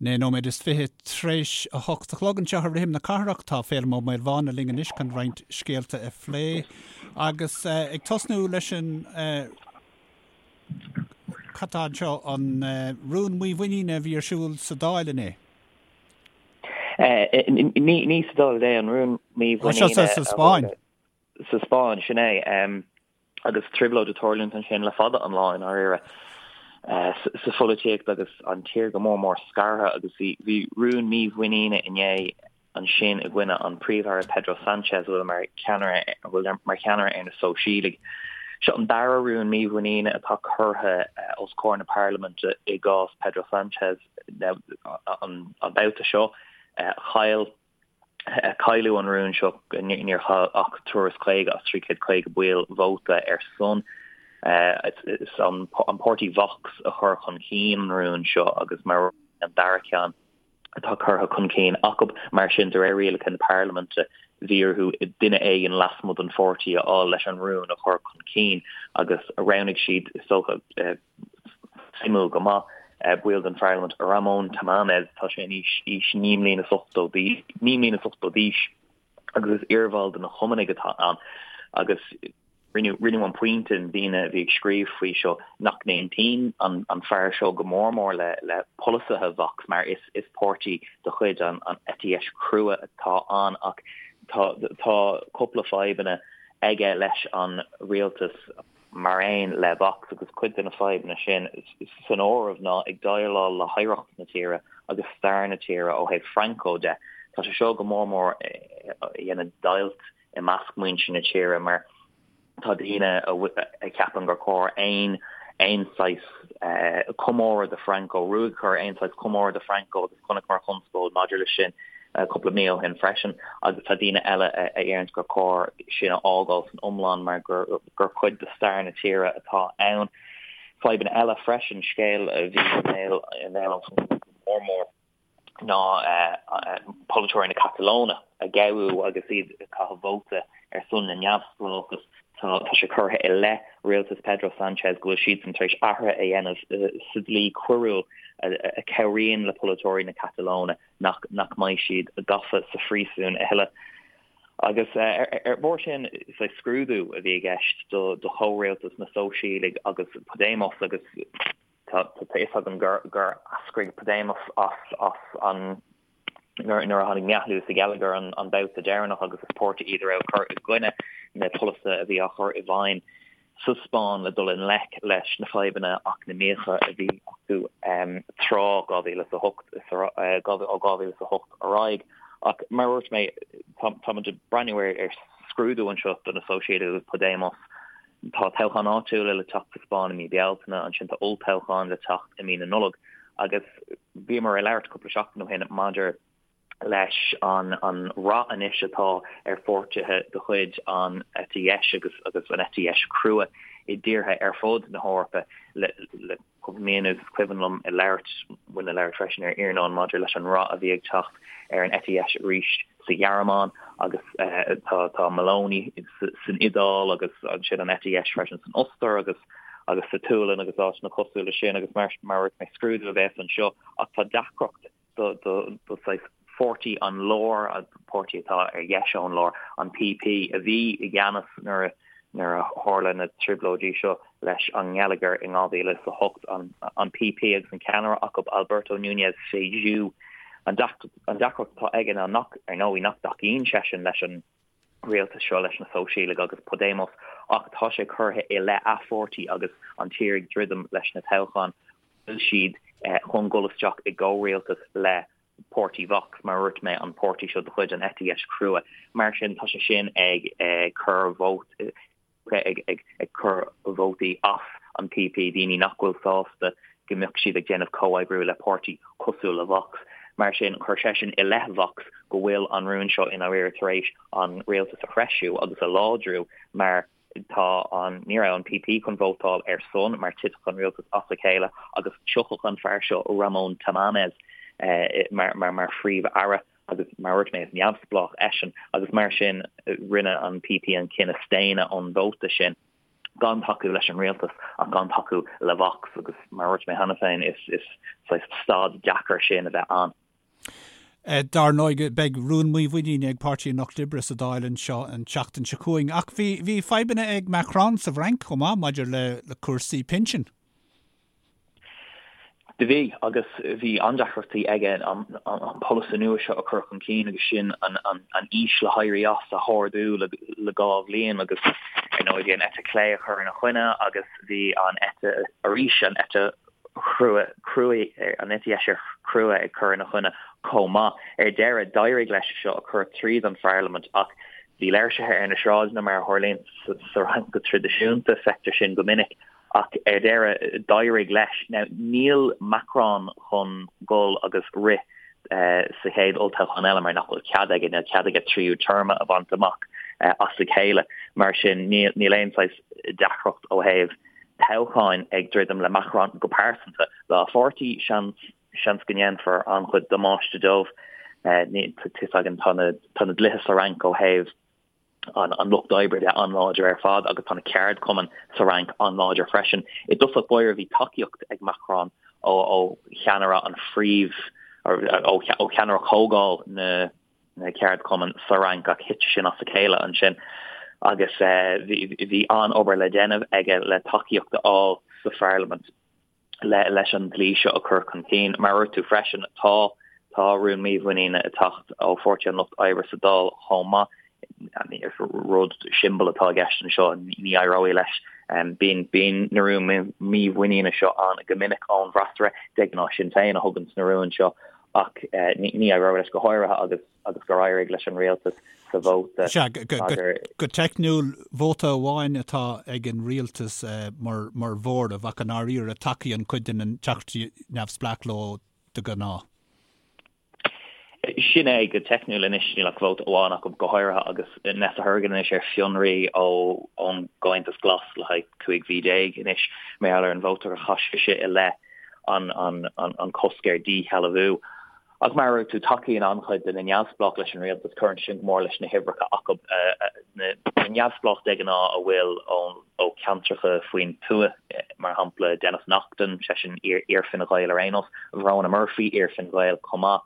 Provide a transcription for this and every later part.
9 nóiméad is 20 tar éis 8 a chlog anseo ar Rithim na Cathrach. Tá Féilim Ó Maolmhána linn anois chun roinnt scéalta a phlé agus ag tosnú leis an cad tá anseo, an rún mímhuiníne a bhí ar siúl sa Dáil inné. Ní sa Dáil inné, an rún mímhuiníne. Sa Spáinn. Sa Spáinn, sin é. Agus trioblóid ag tarlúint ansin le fada an lá i ndáiríre sa pholaitíocht agus an tír go mór mór scartha agus bhí rún mímhuiníne inné ansin i gcoinne an Príomh-Aire Pedro Sanchez a bhfuil mar cheannaire a bhfuil mar cheannaire ar na Sóisialaigh. Seo an dara rún mímhuiníne atá curtha os comhair na parlaiminte i gcás Pedro Sanchez an babhta seo. Chaill Cailleadh an rún seo, níor chaill ach 350 as 350 baill vóta ar son. Is an páirtí Vox a chuir chun cinn an rún seo agus mar an dara ceann atá curtha chun cinn acu. Mar sin, de réir rialacha na parlaiminte, bhí orthu duine éigin lasmuigh den pháirtí a fháil leis an rún a chur chun cinn agus roghnaigh siad, is dócha, Suimiúil go maith, baill den pharlaimint, Ramón Tamames, tá sé in aois 89 mbliana is 80 d'aois agus is iarbhall de na Cumannaigh atá ann agus rinneadh an pointe, na daoine a bhí ag scríobh faoi seo, nach n-aontaíonn an fear seo go mór mór le polasaithe Vox mar is páirtí de chuid an eite dheis chrua atá ann ach tá cúpla fadhbanna aige leis an rialtas. mar aon le Vox agus cuid de na fadhbanna sin san áireamh ná ag déileáil le hoidhreacht na tíre agus stair na tíre ó thaobh Franco de. Tá sé seo go mór mór ag déanamh deighilt i measc muintir na tíre mar tá daoine a cheapann gur chóir aon aon saghas comóradh do Franco, ruaig a chur aon saghas comóradh do Franco agus chonaiceamar conspóid maidir leis sin cúpla mí ó shin freisin agus tá daoine eile a deireanns gur chóir sin a fhágáil san iomlán mar gur cuid de stair na tíre atá ann. Fadhbanna eile freisin, scéal a bhí i mbéal an phobail go mór mór ná polaiteoirí na Catalóine a gabhadh agus iad ag caitheamh vóta ar son na neamhspleáchas. Tá sé curtha i leith rialtas Pedro Sanchez go bhfuil siadsan tar éis athruithe a dhéanamh sa dlí coiriúil a chabhraíonn le polaiteoirí na Catalóine nach nach mbeidh siad gafa sa phríosún a thuilleadh. Agus ar bharr sin, is scrúdú a bhí i gceist do chomhrialtas na Sóisialaigh agus Podemos agus tá a fhios againn gur gur eascraigh Podemos as as an nuair a tháinig meathlú sa gheilleagar an babhta deireanach agus is páirtí iad a raibh ag cur i gcoinne na polasaithe a bhí á chur i bhfeidhm sa Spáinn le dul i ngleic leis na fadhbanna eacnamaíocha a bhí acu tráth 2008, ó 2008 ar aghaidh. Ach mar a dúirt mé, táimid ag breathnú ar scrúdú anseo do na Sóisialaigh agus Podemos. Tá toghcháin áitiúla le teacht sa Spáinn i mí Bealtaine, ansin tá olltoghchán le teacht i mí na Nollag agus bhíomar ag labhairt cúpla seachtain ó shin maidir leis an an rath anois atá ar pháirtithe de chuid an eite dheis agus agus an eite dheis chrua i dtíortha ar fud na hEorpa le le cúpla mí anuas. Is cuimhin liom ag labhairt, muid ag labhairt freisin ar Iarnóin maidir leis an rath a bhí ag teacht ar an eite dheis arís sa Ghearmáin agus tá tá Meloni san Iodáil agus ansin an eite dheis freisin san Ostair agus agus sa tSualainn agus áiteanna cosúil leis sin agus mar mar a dúirt mé scrúdú a bheas anseo ach tá deacracht do saghas pháirtí an láir, an páirtí atá ar dheis ón lár, an PP, a bhí i gceannas nuair a nuair a tharla na trioblóidí seo leis an ngeilleagar in 2008, an PP agus an ceannaire acu, Alberto Núñez Feijóo. An deacracht atá aige ná nach, ar ndóigh, nach dtacaíonn seisean leis an rialtas seo, leis na Sóisialaigh agus Podemos, ach tá sé curtha i leith a pháirtí agus an tír ag druidim leis na toghcháin bhfuil siad chun dul isteach i gcomhrialtas le páirtí Vox, mar a dúirt mé, an páirtí seo de chuid an eite dheis chrua. Mar sin, tá sé sin ag cur vóta ag cur vótaí as an PP, daoine nach bhfuil sásta go mbeadh siad ag déanamh comhoibriú le páirtí cosúil le Vox. Mar sin, chuir seisean i leith Vox go bhfuil an rún seo i ndáiríre tar éis an rialtas a threisiú agus a láidriú mar tá an, ní raibh an PP chun vótáil ar son mar titfeadh an rialtas as a chéile agus thiocfadh an fear seo Ramón Tamames mar mar phríomh-aire agus mar a dúirt mé is neamhspleách eisean agus mar sin rinne an PP an cinneadh staonadh ón vóta sin. Gan tacú leis an rialtas ach gan tacú le Vox agus mar a dúirt mé cheana féin is is saghas staid deacair sin a bheith ann. Dar ndóigh beidh rún mímhuiníne ag Páirtí an Lucht Oibre sa Dáil anseo an tseachtain seo chugainn ach bhí bhí fadhbanna ag Macron sa bhFrainc chomh maith maidir le le cúrsaí pinsin. Do bhí, agus bhí an-deacrachtaí aige an polasaí nua seo a chur chun cinn agus sin an aois le héirí as a hardú le 2 bhliain agus ar ndóigh bhí an eite chlé ag cur ina choinne agus bhí an eite arís an eite chrua cruaidh an eite dheis chrua ag cur ina choinne chomh maith. Ar deireadh d'éirigh leis seo a chur tríd an pharlaimint ach bhí léirsithe ar na sráideanna mar a tharlaíonn sa Fhrainc go traidisiúnta, feictear sin go minic. Ach ar deireadh, d'éirigh leis. Now, níl Macron chun dul agus rith sa chéad olltoghchán eile mar nach bhfuil cead aige, níl cead aige tríú téarma a bhaint amach as a chéile. Mar sin, níl aon saghas deacracht ó thaobh toghcháin ag druidim le Macron go pearsanta. Dá pháirtí, seans, seans go ndéanfar an-chuid damáiste dóibh. Tá fhios againn, tá na dlíthe sa Fhrainc ó thaobh an lucht oibre de an-láidir ar fad agus tá na ceardchumainn sa Fhrainc an-láidir freisin. I dtosach báire bhí tacaíocht ag Macron ó cheannaire an phríomh ó cheannaire chomhdháil na na ceardchumann sa Fhrainc ach thit sin as a chéile ansin agus bhí an-obair le déanamh aige le tacaíocht a fháil sa pharlaimint. leis an dlí seo a chur chun cinn. Mar a dúirt tú freisin, tá tá rún mímhuiníne ag teacht ó Pháirtí an Lucht Oibre sa Dáil chomh maith. Rud siombail atá i gceist anseo, ní éireoidh leis. Bíonn bíonn na rúin mímhuiníne seo ann go minic ón bhfreasúra, de ghnáth Sinn Féin a thugann na rúin seo ach ní éireoidh leis go háirithe agus agus gur éirigh leis an rialtas sa vóta Sea, go teicniúil, vóta amháin atá ag an rialtas mar mhóramh ach i ndáiríre tacaíonn cuid de na teachtaí neamhspleách leo de ghnáth. Sin é, go teicniúil anois níl ach vóta amháin acu, go háirithe agus Nessa Horgan anois ar fionraí ón gComhaontas Glas le haghaidh 15 mhí anois mar gheall ar an vóta a chaith sise i leith an cosc ar dhíshealbhú. Ach mar a dúirt tú, tacaíonn an-chuid de na neamhspleách leis an rialtas, cuireann sin go mór leis na huimhreacha acu. Na neamhspleách de ghnáth a bhfuil ó cheantracha faoin tuath, mar shampla Denis Naughten, seisean iar-Fhine Gael ar aon nós, Verona Murphy, iar-Fhine Gael chomh maith,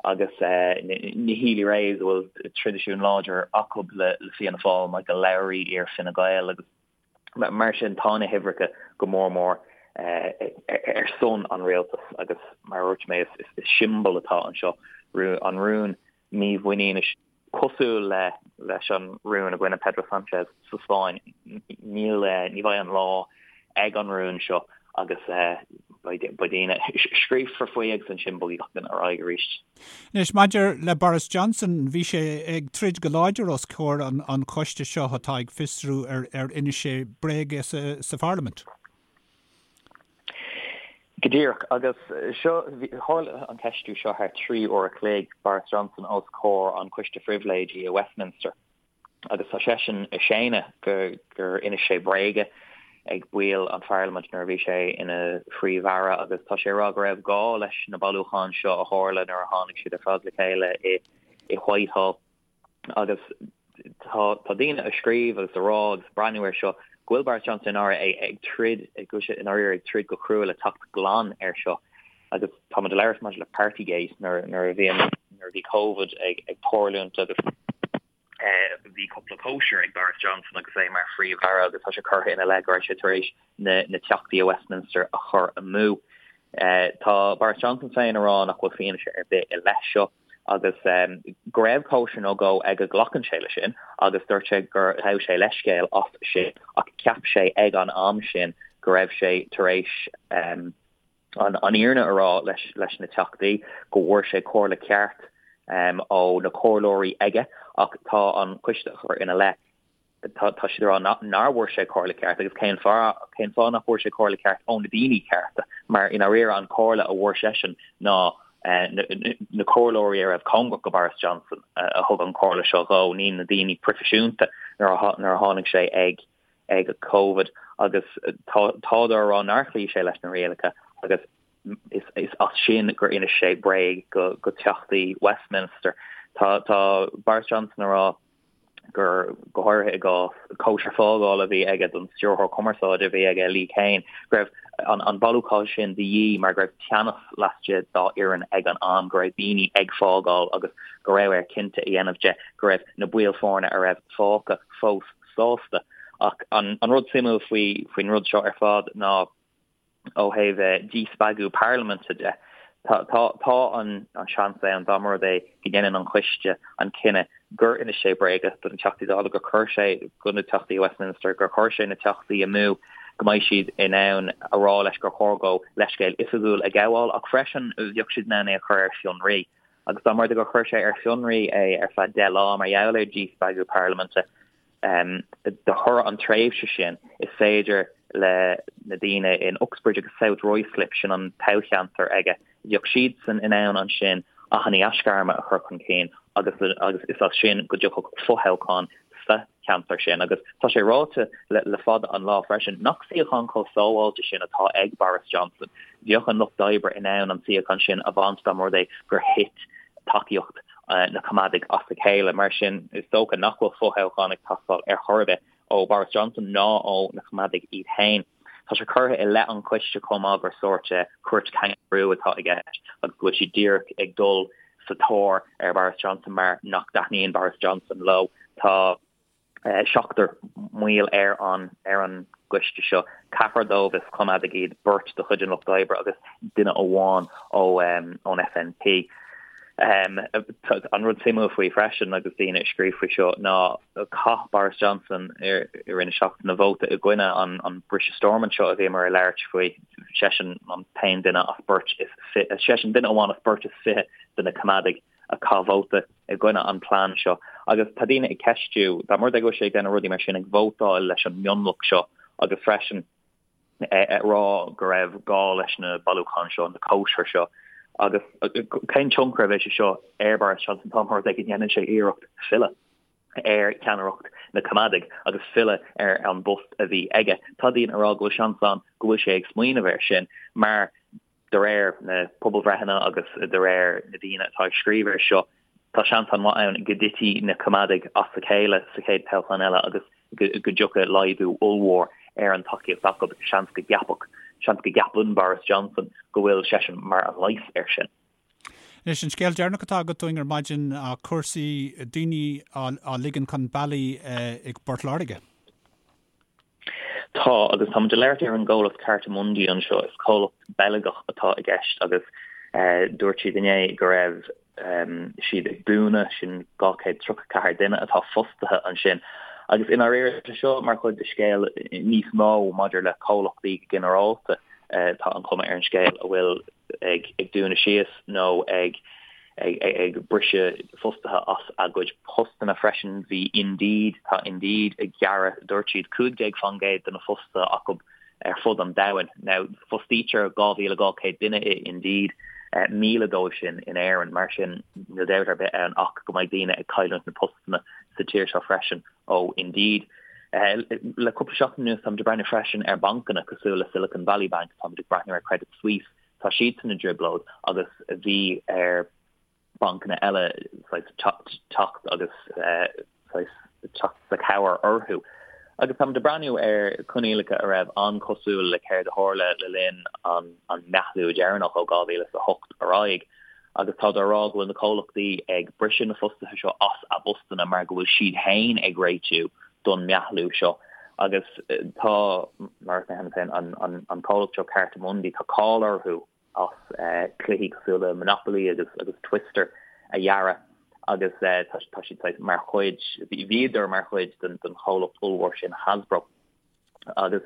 agus na Healy-Raes a bhfuil traidisiún láidir acu le Fianna Fáil, Michael Lowry, iar-Fhine Gael agus. Mar sin, tá na huimhreacha go mór mór ar son an rialtais agus, mar a dúirt mé, is siombail atá anseo, an rún mímhuiníne cosúil le leis an rún i gcoinne Pedro Sanchez sa Spáinn. Níl, ní bheidh an lá ag an rún seo agus beidh daoine, scríobfar faoi agus ansin bogfaidh gach duine ar aghaidh arís. Anois, maidir le Boris Johnson, bhí sé ag troid go láidir os comhair an choiste seo atá ag fiosrú ar inis sé bréaga sa pharlaimint. Go díreach. Agus seo, tharla an ceistiú seo thar 3 uair a chloig, Boris Johnson os comhair an Choiste Phribhléidí i Westminster. agus tá seisean ag séanadh gur inis sé bréaga ag baill an pharlaimint nuair a bhí sé ina phríomh-aire agus tá sé ag rá go raibh gá leis na bailiúcháin seo a tharla nuair a tháinig siad ar fad le chéile i Whitehall agus tá tá daoine ag scríobh agus ag rá agus ag breathnú air seo go bhfuil Boris Johnson i ndáiríre ag troid go bhfuil sé i ndáiríre ag troid go crua le teacht glan air seo agus táimid ag labhairt maidir le Partygate nuair nuair a bhí nuair a bhí Covid ag ag tarlúint agus bhí cúpla cóisir ag Boris Johnson agus é mar phríomh-aire agus tá sé curtha ina leith go raibh sé tar éis na na teachtaí i Westminster a chur amú. Tá Boris Johnson féin ag rá nach bhfuil fianaise ar bith i leith seo agus go raibh cóisir nó dhó aige glacann sé leis sin agus dúirt sé gur ghabh sé leithscéal as sin ach cheap sé ag an am sin go raibh sé tar éis an fhírinne a rá leis na Teachtaí go bhfuair sé comhairle ceart ó na comhairleoirí aige ach tá an coiste a chur ina leith, tá siad ag rá nár bhfuair sé comhairle ceart agus cén fáth, cén fáth nach bhfuair sé comhairle ceart ó na daoine cearta mar i ndáiríre an comhairle a bhfuair seisean ná na comhairleoirí a raibh cóngarach go Boris Johnson a thug an comhairle seo dhó, ní na daoine proifisiúnta nuair a tháinig sé ag ag Covid agus tádar ag rá nár chloígh sé leis na rialacha agus is as sin gur inis sé bréag go teachtaí Westminster. Tá Boris Johnson ag rá gur, go háirithe i gcás cóisir fágála a bhí aige don stiúrthóir cumarsáide a bhí aige, Lee Cain, go raibh an bailiúchán sin de dhíth mar go raibh teannas laistigh dá fhoireann ag an am, go raibh daoine ag fágáil agus go raibh air cinnte a dhéanamh de go raibh na baill foirne a raibh fágtha fós sásta. Ach an rud suimiúil faoin rud seo ar fad ná, Ó thaobh díspeagadh parlaiminte de, tá an seans ann, dá mba rud é go ndéanann an coiste an cinneadh gur inis sé bréaga do na Teachtaí Dála, gur chuir sé do na Teachtaí Westminster, gur chuir sé na Teachtaí amú, go mbeidh siad in ann a rá leis gur chóir dó leithscéal oifigiúil a ghabháil, ach freisin bheadh siad in ann é a chur ar fionraí. Agus dá mba rud é gur chuir sé ar fionraí é ar feadh 10 lá mar gheall ar dhíspeagadh parlaiminte, De thoradh an tréimhse sin, is féidir le na daoine in Uxbridge agus South Ruislip, sin an toghcheantar aige, bheadh siadsan in ann ansin achainí aisghairme a chur chun cinn agus agus is as sin go dtiocfadh fothoghchán sa cheantar sin. Agus tá sé ráite le fada an lá freisin nach suíochán chomh sábháilte sin atá ag Boris Johnson. Bheadh an Lucht Oibre in ann an suíochán sin a bhaint dá mba rud é gur thit tacaíocht na Coimeádaigh as a chéile. Mar sin, is dócha nach bhfuil fothoghchán ag teastáil ar chor ar bith ó Boris Johnson ná ó na Coimeádaigh iad féin. Tá sé curtha i leith an choiste chomh maith gur sórt cúirt cangarú atá i gceist agus go bhfuil siad díreach ag dul sa tóir ar Boris Johnson mar nach dtaitníonn Boris Johnson leo. Tá. seachtar mbaill ar an ar an gcoiste seo, ceathrar dóibh is Coimeádaigh iad, beirt de chuid an Lucht Oibre agus duine amháin ó ón SNP. An rud suimiúil faoi freisin agus daoine ag scríobh faoi seo ná chaith Boris Johnson i rith na seachtaine vóta i gcoinne an an briseadh Stormont seo a bhíomar ag labhairt faoi, seisean an t-aon duine as beirt is seisean duine amháin as beirt is 20 de na Coimeádaigh a chaith vóta i gcoinne an plean seo agus tá daoine ag ceistiú, dá mba rud é go bhfuil sé ag déanamh rudaí mar sin, ag vótáil leis an mionlach seo agus freisin ag rá go raibh gá leis na bailiúcháin seo, na cóisir seo agus cén tionchar a bheidh sé seo ar Boris Johnson dá mba rud é go ndéanann sé iarracht filleadh ar cheannaireacht na Coimeádaigh agus filleadh ar an bpost a bhí aige. Tá daoine ag rá go bhfuil seans ann go bhfuil sé ag smaoineamh air sin mar De réir na pobalbhreitheanna agus de réir na daoine atá ag scríobh air seo, tá seans an-mhaith ann go dtitfidh na Coimeádaigh as a chéile sa chéad toghchán eile agus go dtiocfaidh laghdú ollmhór ar an tacaíocht acu. Seans go gceapfadh, seans go gceapann Boris Johnson go bhfuil seisean mar an leigheas air sin. Anois, an scéal deireanach atá agat dúinn ar maidin, cúrsaí daoine á ligean chun bealaigh i bPort Láirge. Tá, agus táimid ag labhairt ar an gcomhlacht Cartamundi anseo. Is comhlacht Beilgeach atá i gceist agus dúirt siad inné go raibh siad ag dúnadh, sin 234 duine atá fostaithe ansin. Agus i ndáiríre, tá seo mar chuid de scéal níos mó maidir le comhlachtaí go ginearálta, tá an chuma ar an scéal, a bhfuil ag dúnadh síos nó ag ag briseadh fostaithe as a gcuid postanna freisin. Bhí Indeed, tá Indeed ag gearradh, dúirt siad, 15% de na fostaithe acu ar fud an domhain. Now, fostaítear 2,200 duine i Indeed, 1,000 dóibh sin in Éirinn. Mar sin, níl dabht ar bith ann ach go mbeidh daoine ag cailliúint na postanna sa tír seo freisin ó Indeed. Le cúpla seachtain anuas, táimid ag breathnú freisin ar bancanna cosúil le Silicon Valley Bank, táimid ag breathnú ar Credit Suisse, Tá siadsan i dtrioblóid agus bhí ar bancanna eile saghas teacht agus saghas teacht sa chabhair orthu. Agus táimid ag breathnú ar coinníollacha a raibh an-chosúil le céard a tharla le linn an an meathlú deireanach ó 2008 ar aghaidh. Agus táthar á rá go bhfuil na comhlachtaí ag briseadh na fostaithe seo as a bpostanna mar go bhfuil siad féin ag réitiú don meathlú seo. Agus tá, mar a dúirt mé cheana féin, an comhlacht seo Cartamundi, tá cáil orthu as cluichí cosúil le Monopoly agus agus Twister a dhearadh agus tá siad saghas mar chuid, bhíodar mar chuid den chomhlacht ollmhór sin Hasbro. Agus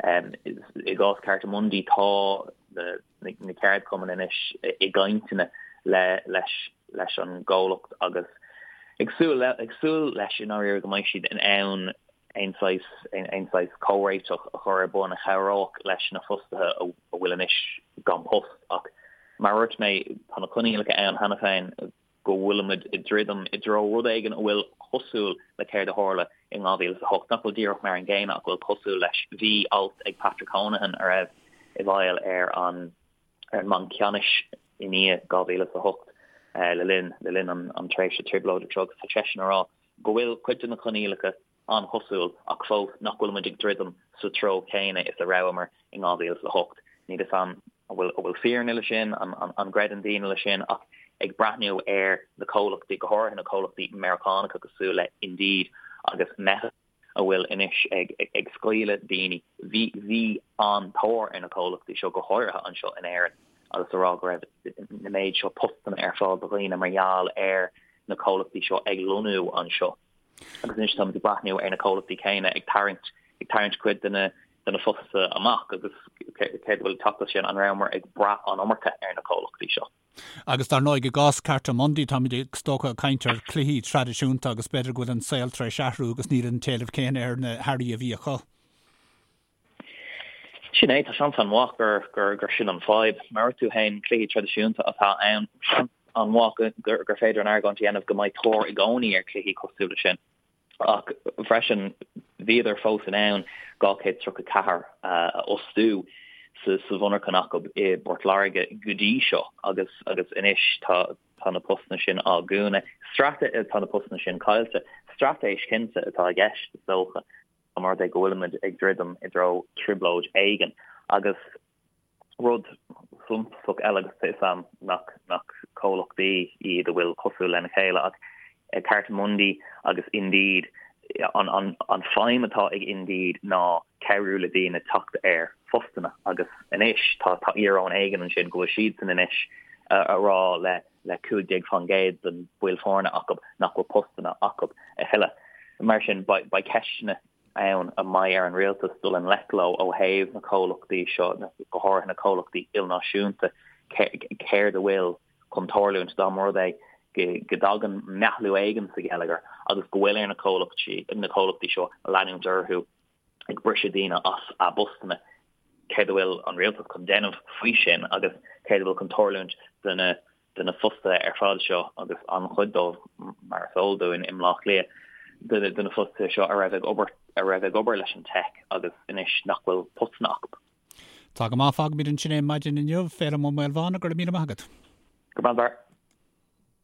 i gcás Cartamundi tá na ceardchumainn anois i gcainteanna le leis leis an gcomhlacht agus ag súil ag súil leis i ndáiríre go mbeidh siad in ann aon saghas aon saghas comhréiteach a chur ar bun a chabhródh leis na fostaithe a bhfuil anois gan post. Ach mar a dúirt mé, tá na coinníollacha ann cheana féin go bhfuilimid ag druidim i dtreo rud éigin a bhfuil cosúil le céard a tharla in 2008, nach bhfuil díreach mar an gcéanna ach a bhfuil cosúil leis. Bhí alt ag Patrick Honohan a raibh i bhfeighil ar an ar an mBanc Ceannais i ndiaidh 2008 le linn le linn an tréimhse trioblóideach seo agus tá seisean ag rá. go bhfuil cuid de na coinníollacha an-chosúil ach fós nach bhfuil muid ag druidim sa treo céanna is a rabhamar in 2008. Níl fhios a'm an bhfuil an bhfuil fírinne le sin, an gcreideann daoine le sin ach ag breathnú ar na comhlachtaí, go háirithe na comhlachtaí Meiriceánacha cosúil le Indeed agus Meta a bhfuil anois ag ag scaoileadh daoine, bhí bhí an-tóir ar na comhlachtaí seo go háirithe anseo in Éirinn agus a rá go raibh na méid seo postanna ar fáil do dhaoine mar gheall ar na comhlachtaí seo ag lonnú anseo. Agus anois táimid ag breathnú ar na comhlachtaí céanna ag tarraingt ag tarraingt cuid de na de na fostaithe amach agus céard a bhfuil ag teacht as sin, an rabhamar ag brath an iomarca ar na comhlachtaí seo? Agus dar ndóigh i gcás Cartamundi táimid is dócha ag caint ar chluichí traidisiúnta agus b'fhéidir go bhfuil an saol tar éis athrú agus níl an t-éileamh céanna ar na hearraí a bhí acu. Sin é, tá seans an-mhaith gur, gur, gur sin an fadhb. Mar a dúirt tú féin, cluichí traidisiúnta atá ann. Seans an-mhaith go, gur, gur féidir an argóint a dhéanamh go mbeidh tóir i gcónaí ar chluichí cosúil le sin. Ach freisin, bhíodar fós in ann 234 a fhostú sa, sa mhonarchan acu i bPort Láirge go dtí seo agus, agus anois tá, tá na postanna sin á dhúnadh. Strate, tá na postanna sin caillte. Straitéis cinnte atá i gceist, is dócha. Mar rud é go bhfuilimid ag druidim i dtreo trioblóid éigin. Agus rud suntasach eile, agus tá 'fhios a'm nach nach comhlachtaí iad a bhfuil cosúil lena chéile, ach Cartamundi agus Indeed, an an an feidhm atá ag Indeed ná cabhrú le daoine teacht ar phostanna agus anois tá tá íoróin éigin ansin go bhfuil siadsan anois a rá le le 15% den baill foirne acu nach bhfuil postanna acu a thuilleadh. Mar sin, beidh ceisteanna ann a mbeidh ar an rialtas dul i ngleic leo ó thaobh na comhlachtaí seo, go háirithe na comhlachtaí ilnáisiúnta, céard a bhfuil chun tarlúint dá mba rud é go dtagann meathlú éigin sa gheilleagar agus go bhfuil ar na comhlachtaí seo leanúint orthu ag briseadh daoine as a bpostanna. Céard a bhfuil an rialtas chun déanamh faoi sin agus céard a bhfuil chun tarlúint do na de na fostaithe ar fad seo agus an-chuid dóibh, mar is eol dúinn, i mBleá Cliath, de na fostaithe seo a raibh ag obair a raibh ag obair leis an teic agus anois nach bhfuil postanna acu. Tá go maith, fágfaimid ansin é maidin inniu. Féilim Ó Maolmhána, go raibh míle maith agat. Go raibh maith.